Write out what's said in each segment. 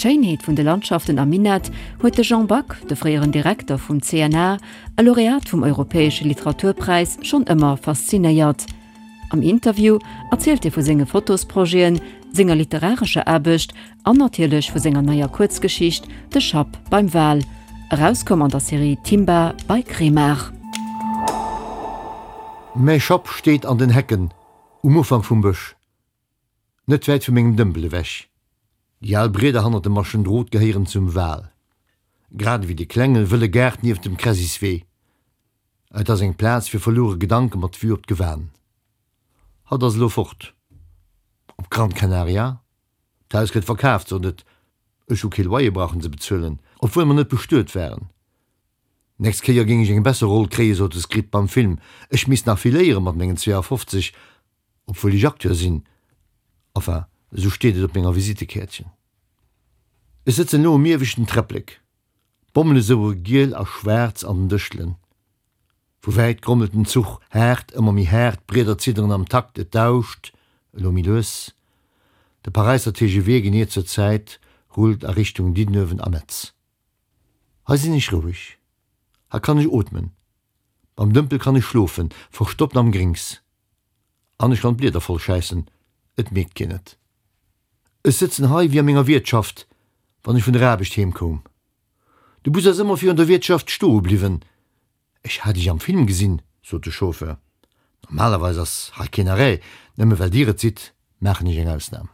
D'Schéinheet vun de Landschaften am Minett huet de Jean Back, de fréieren Direkter vum CNA a Laureat vum Europäesche Literaturpräis, schonn ëmmer faszinéiert. Am Interview erzielt hie vu senge Fotosprojeten, senger literarescher Aarbecht an natierlech vu senger neier Kuerzgeschicht De Schapp beim Wal, erauskomm an der Serie Timba bei Kremart. Mäi Schapp steet an den Hecken um Ufank vum Bësch. Net wäit vu mengem Dëmpel ewech. Déi al Brieder hannert dem Maschendrot gehéieren zum Wal, grad ewéi de klenge wëlle Gaart nieft dem Kresiswee. Et ass eng Plaz fir verluere Gedanke mat Vue op d'Gewan. Hatt ass elo fort. Op Gran Canaria. D'Haus gëtt verkaaft, sot et. Ech hu kee Loyer brauchen ze bezuelen, obwuel mer net bestuet waren. Nächst Kéier géing ech eng besser Roll kréien, sot de Script beim Film. Ech misst nach vill léieren mat mengen 52. Obwuel ech Acteur sinn, enfin, esou steet et op menger Visitekäertchen. Ech sëtzen elo um ieweschten Träpplek, d'Bommele soure giel a schwaarz an den Dëschtelen. Vu wäit grommelt den Zuch, haart, ëmmer méi haart, d'Brieder zidderen am Takt, et dauscht, elo méi lues. De Paräisser TGV, genee zur Zäit, rullt a Richtung Diddenuewen a Metz. Hei sinn ech roueg, hei kann ech ootmen, Beim Dëmpel kann ech schlofen, verstoppt am Grings. An ech kann d'Blieder voll schäissen, et mierkt keen et. Ech sëtzen hei wéi a menger Wiertschaft, wann ech vun der Aarbecht heem koum. De Bus ass ëmmer virun der Wiertschaft stoe bliwwen. Ech hat iech am Film gesinn, sot de Chauffeur. Normalerweis ass hei keen Arrêt, nëmme well dir et sidd, maachen ech eng Ausnam.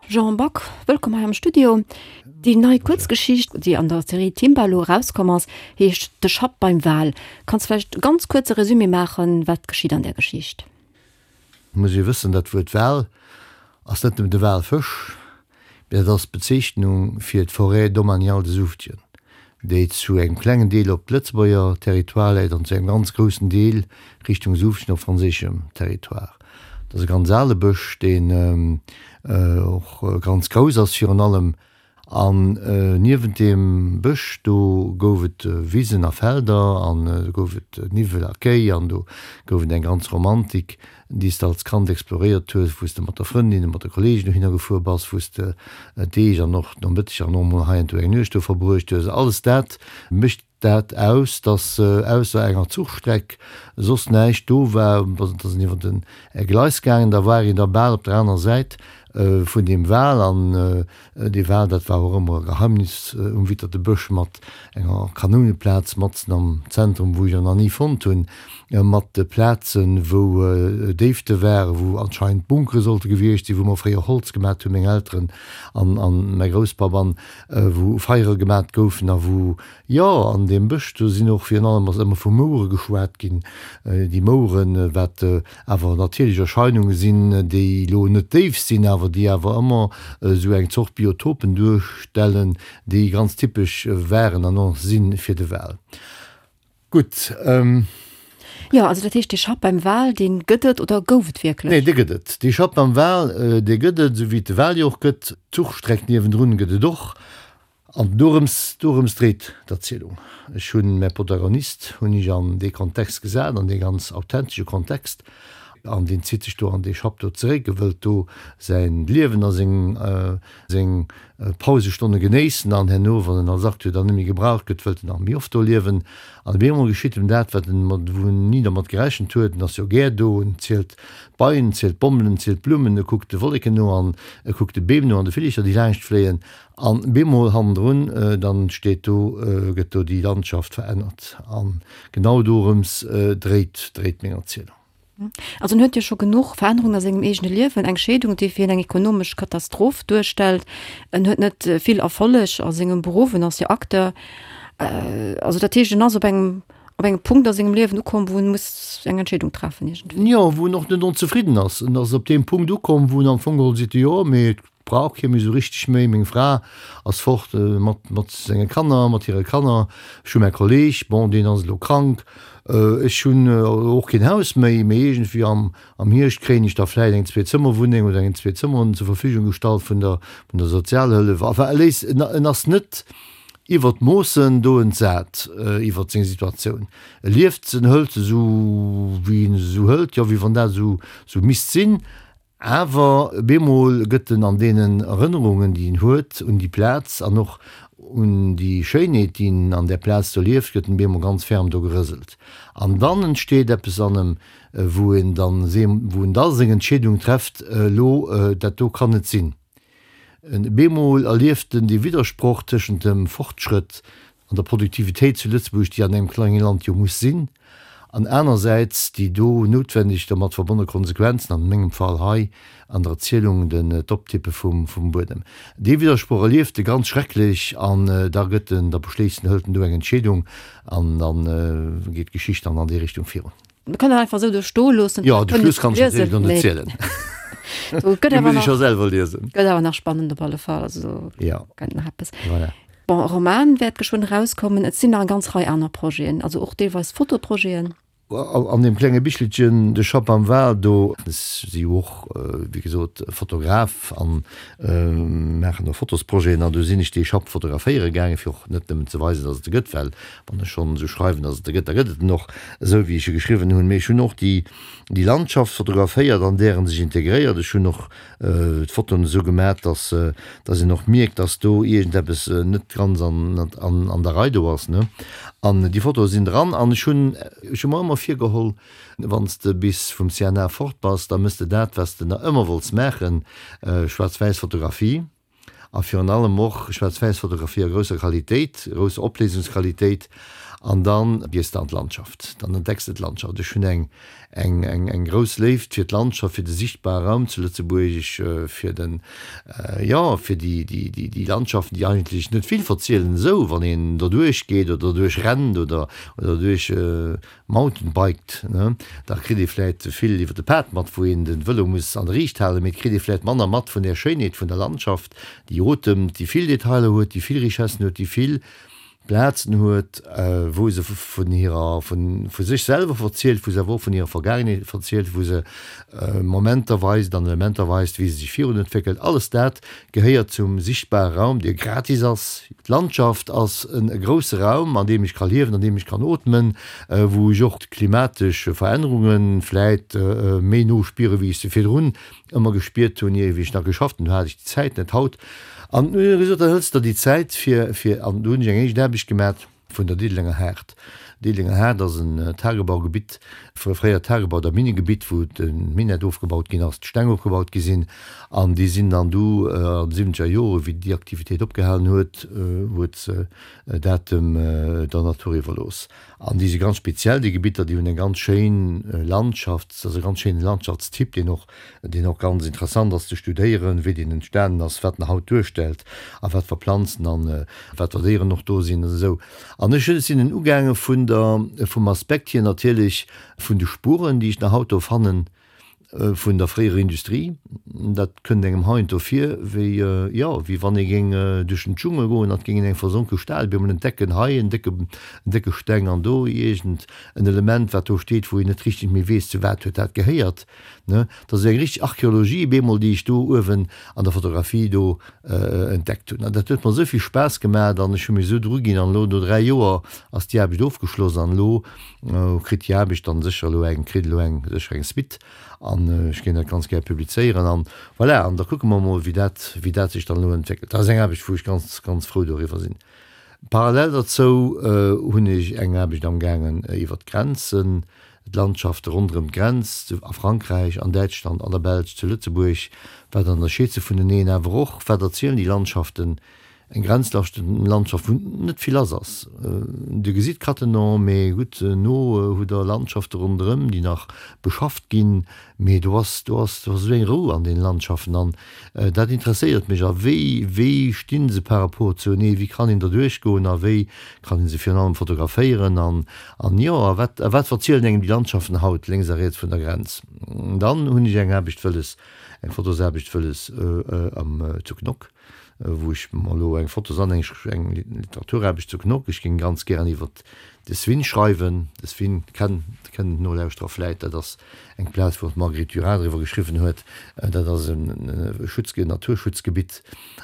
Jean Back, wëllkomm hei am Studio. Déi nei Kuerzgeschicht, déi an der Serie Timballo erauskomm ass, heescht De Schapp beim Wal. Kanns vläicht e ganz kuerze Resumé maachen, wat geschitt an där Geschicht? Muss ee wëssen, dat Wuert Wal ass net nëmmen de Walfësch, Mee dat ass d'Bezeechnung fir d'Forêt domaniale de Soufdjen, déi zu engem klengen Deel op Lëtzebuerger Territoire läit an zu engem ganz groussen Deel Richtung Soufdjen op franséischem Territoire. Dat ass e ganz ale Bësch, deen och ganz grouss ass virun allem. An niewent deem Bësch do gouf et Wisen a Felder an do gouf et Niwwel a Kéi an do gouf et eng ganz Romantik. déi s de als Kand exploréiert hues, wou s de mat der Frëndin oder mat de Kollegen dohinner gefuer bass, wou s de Deeg an och Nomëtteger an och emol heiansdo eng Nuecht do verbruecht hues. Alles dat mécht dat aus, dass ausser enger Zuchstreck soss näischt do war. Et ass een iwwer den Gleis gaangen, da war een da bal op der anerer Säit vun deem Wal an Dee Wal, dat war och ëmmer e Geheimnis um Witterte Bësch mat enger Kanouneplaz matzen am Zentrum, wou ech en nach ni fonnt hunn, mat Plazen, wou Déifte waren, wou anscheinend Bunkere sollte gewiescht sinn, wou mer fréier Holz gemat hunn, meng Elteren an mäi Grousspapp, an wou Feiere gemat goufen a wou, jo, an deem Bësch, do sinn och virun allem ass ëmmer vu Mouere geschwat ginn. Déi Moueren, wat awer natierlech Erscheinunge sinn, déi elo net déif sinn, awer déi awer ëmmer esou eng Zort Biotopen duerstellen, déi ganz typesch waren an och si fir de Wal. Gutt. Jo, also dat heescht, dee Schapp beim Wal, dee gëtt et oder gouf et wierklech? Nee, dee gëtt et. Dee Schapp beim Wal, dee gëtt et, esou wéi et de Wal jo och gëtt. D'Zuchstreck niewendrun gëtt et och. An dorëms, dorëms dréit d'Erzielung. Ech hunn mäi Protagonist hunn ech an dee Kontext gesat, an dee ganz authentesche Kontext, an deen zitt sech do an dee Schapp do zeréck, e wëllt do säin Liewen a seng, seng Pausestonne genéissen an herno, wann en als Acteur dann net méi gebraucht gëtt, wëllt en nach méi oft do liewen. An op eemol geschitt em dat, wat en mat, wou en ni dermat gerechent huet, en ass jo gär do, en zielt d'Beien, en zielt d'Bommelen, en zielt d'Blummen, e kuckt de Wolleken no an e kuckt de Beem no an de Villercher, déi laanscht fléien. An bemol hannendrun, dann steet do, gëtt do déi Landschaft verännert. An genau dorëms dréit, dréit meng Erzielung. Also en huet jo scho genuch Verännerungen a sengem eegene Liewen, eng Scheedung, déi fir hien eng ekonomesch Katastroph duerstellt. En huet net vill Erfolleg a sengem Beruff, en ass jo Acteur. Also dat heescht, en ass op engem, op engem Punkt a sengem Liewen ukomm, wou en muss eng Entscheedung treffen iergendwéi. Jo, wou en och net onzefridden ass. En ass op deem Punkt ukomm, wou en am Fong geholl seet, jo, mee et Brauch kee méi esou richteg méi. Meng Fra ass fort mat mat senge Kanner, mat hire Kanner. Ech hu mäi Kolleg, bon, deen ass elo krank. Ech hunn och keen Haus méi, mee iergendwéi am am Hierscht kréien ech da vläicht eng Zweezëmmerwunneng oder eng Zweezëmmerwunneng zur Verfügung gestallt vun der vun der Sozialhëllef. Enfin, e léisst, en en ass net iwwer d'Moossen do entsat iwwer seng Situatioun. E lieft se, en hëlt se esou wéi en se esou hëlt, jo, wéi wann dat esou esou misst sinn. Awer bemol gëtt en an deenen Erënnerungen, déi en huet un déi Plaz an och un déi Schéinheet, déi en an där Plaz do lieft, gëtt en bemol ganz ferm do gerëselt. An dann entsteet eppes an em, wou en dann, wou en da seng Entscheedung trefft, Elo, dat do kann net sinn. Bemol erlieft en dee Widdersproch tëschent dem Fortschrëtt an der Produktivitéit zu Lëtzebuerg, déi an engem klenge Land jo muss sinn, an anersäits déi do noutwendeg dermat verbonne Konsequenzen, an mengem Fall hei an der Erzielung den d'Optippe vum vum Buedem. Dee Widdersproch erlieft e ganz schrecklech an da gëtt en, da beschléisst en, hëlt en do eng Entscheedung an da geet d'Geschicht dann an déi Richtung virun. Mir kënnen dat einfach esou do stoe loossen. Jo, de Schluss kann ech natierlech elo net zielen. Do gëtt Dee awer muss ech nach, scho selwer liesen. gëtt awer nach spannend op alle Fall. Also do Ja. gëtt nach eppes. Voilà. Bon, e Roman wäert geschwënn erauskommen. Et sinn nach eng ganz Rei aner Projeten, also och deelweis Fotoprojeten. An deem klenge Bichelchen De Schapp am Wal, do ech si jo och, wéi gesot, Fotograf an maachen och Fotosprojeten an do sinn ech dee Schapp fotograféiere gaangen, fir och net nëmmen ze weisen, datt et e gëtt, well Wann ech schonn esou schreiwen, datt et e gëtt, da gëtt et en och esou, wéi ech e geschriwwen hunn. Mee ech hunn och déi, déi Landschaft fotograféiert, an där en sech integréiert. Ech hunn och d'Fotoen esou gemat, datt, datt een och mierkt, datt do iergendeppes net ganz an, an, an der Rei do ass, ne. An déi Fotoe sinn dran. An ech hunn, ech hu mer ëmmer virgeholl, Wann s de bis vum CNA fort bass, da mëss de dat, wat s de nach ëmmer wollts maachen, schwaarz-wäiss Fotografie. A virun allem och Schwaarz-Wäiss-Fotografie a grousser Qualitéit, grousser Opléisungsqualitéit. An dann gees de an d'Landschaft, dann entdecks de d'Landschaft. Ech hunn eng, eng, eng, eng grouss Léift fir d'Landschaft, fir de sichtbare Raum zu Lëtzebuerg, fir den, jo, fir déi, déi, déi, déi Landschaften, déi eigentlech net vill verzielen esou, wann een derduerch geet oder derduerch rennt oder, oder derduerch Mountainbiked, ne, da kritt ee vläit vill iwwer de Pad mat, wou een den Vëlo muss an der Riicht halen, mee et kritt ee vläit manner mat vun där Schéinheet vun der Landschaft, déi otemt, déi vill Detailer huet, déi vill Richessen huet, déi vill Plazen huet, wou se vun hirer, vu sech selwer verzielt, wou se awer och vun hirer Vergaangenheet verzielt, wou se Momenter weist an Elementer weist, wéi se sech virun entwéckelt. Alles dat gehéiert zum sichtbare Raum, dee gratis ass. D'Landschaft ass e grousse Raum, an deem ech ka liewen, an deem ech kann ootmen, wou ech och d'klimatesch Verännerunge vläit méi no spieren, wéi ech se virdrun ëmmer gespiert hunn, ier wéi ech nach geschafft hunn. Do hat ech déi Zäit net. Haut, an hunn ech gesot, da hëls der déi Zäit fir, fir, an do hunn ech eng éischt Aarbecht gemat. Vun der Diddelenger Haard. Diddelenger Haard ass en Tagebaugebitt, fréiert Tagebau oder Minnegebitt, wou de Minett ofgebaut ginn ass, d'Steng ofgebaut gi sinn. An déi sinn dann du an de siwwenzeger Jore wéi déi Aktivitéit opgehalen huet, huet se dat dem der Natur iwwerlooss. An déi si ganz speziell, déi Gebitter, déi hunn eng ganz schéin Landschaft, dat ass e ganz schéine Landschaftstyp, deen och deen och ganz interessant ass ze studéieren, wéi deen entstanen ass, wat en haut duerstellt a wat fir Planzen an wat fir Déieren och do sinn an esou. An ech sinn en ugaange vun der, vum Aspekt hier natierlech vun de Spuren, déi ech nach haut do fannen, vun der fréierer Industrie. Dat kënnt engem heiansdo vir wéi, jo, wéi wann ee géing duerch den Dschungel goen an et géing een eng versonke Stad op eemol entdecken, hei en décke, en décke Steng an do iergend en Element, wat do steet, wou een net richteg méi weess, zu wat huet dat gehéiert. Ne, dat ass eng richteg Archeologie bemol, déi ech do uewen an der Fotografie do entdeckt hunn. An dat huet mer esou vill Spaass gemaat an ech hu mech esou dru ginn. An elo no 3 Joer ass déi Aarbecht ofgeschloss an elo kritt déi Aarbecht dann sécher elo eng, kritt elo eng, sécher eng Suite an ech géing dat ganz gär publizéieren an voilà. An da kucke mer emol, wéi dat, wéi dat sech dann elo entwéckelt. Dat ass eng Aarbecht, wou ech ganz, ganz frou doriwwer sinn. Parallel derzou hunn ech eng Aarbecht amgaangen iwwert d'Grenzen, d'Landschafte ronderëm d'Grenz, a Frankräich, an Däitschland, an der Belsch, zu Lëtzebuerg, wat ënnerscheet se vuneneen, awer och, wat erzielen déi Landschaften, eng Grenzlandschaft, wou net vill lass ass. Dir gesitt Cattenom, mee gutt, no hutt Der Landschafte ronderëm, déi nach beschafft ginn, Mee do ass, do ass, do ass esou eng Rou an deene Landschaften an dat interesséiert mech. A wéi, wéi sti se par rapport zuenee, wéi kann een derduerch goen a wéi kann ee se virun allem fotograféieren an, an jo, a wat, a wat verzielen engem déi Landschaften haut lénks a riets vun der Grenz? Dann hunn ech eng Aarbecht wëlles, eng Fotosaarbecht wëlles am, zu Knock, wou ech mer elo eng Fotos an eng, eng Literaturaarbecht zu Knock, ech géing ganz gären iwwert de Swin schreiwen. De Swin kennen, kennen d'Nolauschterer vläit, dat ass Eng Plaz, wou och d'Marguerite Durand driwwer geschriwwen huet, dat ass e Schutzge Naturschutzgebitt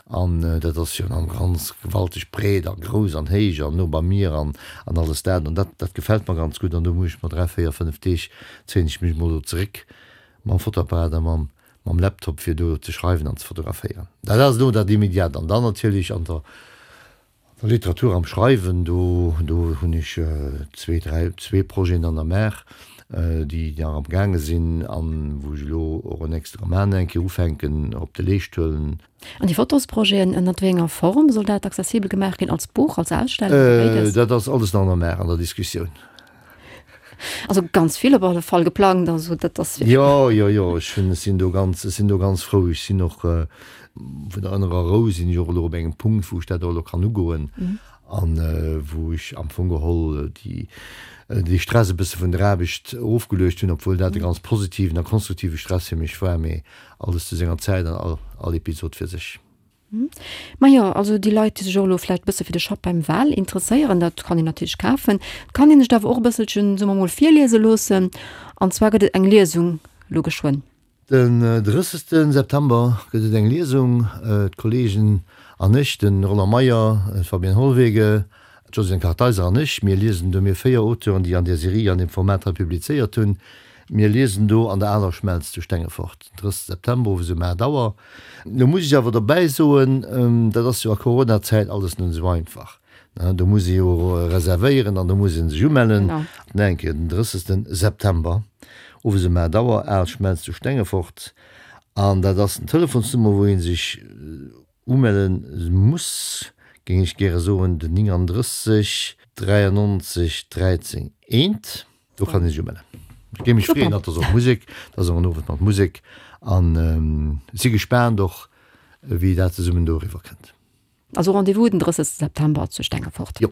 an dat ass jo dann ganz gewalteg breet a grouss an héich an no beim Mier an an alles dat. An dat dat gefält mer ganz gutt an do muss ech mer 3, 4, 5 Deeg zéien ech mech mol do zeréck mam Fotoapparat a mam. mam Laptop fir do ze schreiwen an ze fotograféieren. Dat ass elo dat Immediat. An dann natierlech an der Literatur, am Schreiwen, do do hunn ech zwee, dräi, zwee Projeten an der Maach, déi nach am gaange sinn an wou ech elo och en nächste Roman eng Kéier ufänken op de Leescht huelen. An déi Fotosprojeten, ënnert wéi enger Form soll dat accessibel gemaach ginn? Als Buch, als Ausstellung oder béides? Dat ass alles nach an der Maach, an der Diskussioun. Also ganz vill op alle Fall geplangt, also dat ass. Jo, jo, jo, ech hunn, ech sinn do ganz, ech sinn do ganz frou. Ech sinn och vun der ënnerer Rou sinn ech och elo op engem Punkt, wou ech dat och elo kann ugoen an wou ech am Fong geholl déi, dee Stress e bësse vun der Aarbecht ofgeluecht hunn, obwuel dat e ganz positiven a konstruktive Stress fir mech war, mee alles zu senger Zäit an all, all Episod fir sech. Majo, also déi Leit, déi sech och elo vläicht e bësse fir de Schapp beim Wal interesséieren, dat kann een natierlech kafen. Et kann een sech et awer och e bësselchen, soe mer mol, virliese loossen. An zwar gëtt et eng Liesung elo geschwënn. Den 30 September gëtt et eng Liesung. D'Kollegen an ech, de Roland Meyer, d'Fabienne Hollwege, d'Josiane Kartheiser an ech, mir liesen do, mir 4 Auteuren, déi an där Serie, an deem Format hei publizéiert hunn, mir liesen do an der Aler Schmelz zu Stengefort. Den 30 September owes um 8 Auer. Lo muss ech awer dobäi soen, dat ass jo a Coronazäit alles net esou einfach. Do muss ee jo reservéieren an do muss ee sech umellen. Nach eng Kéier, den 30 September owes um 8 Auer, Al Schmelz zu Stengefort. An dat ass den Telefonsnummer, wou ee sech umelle muss, géing ech gäre soen, den 39 93 13 1. Do kann ee sech umellen. Ech géing mech freeën, dat ass och Musek, dat ass och en Owend mat Musek an si gespaant och, wéi dat zesummen do eriwwer kënnt. Also Rendez-vous den 30 September zu Stengefort. Jo.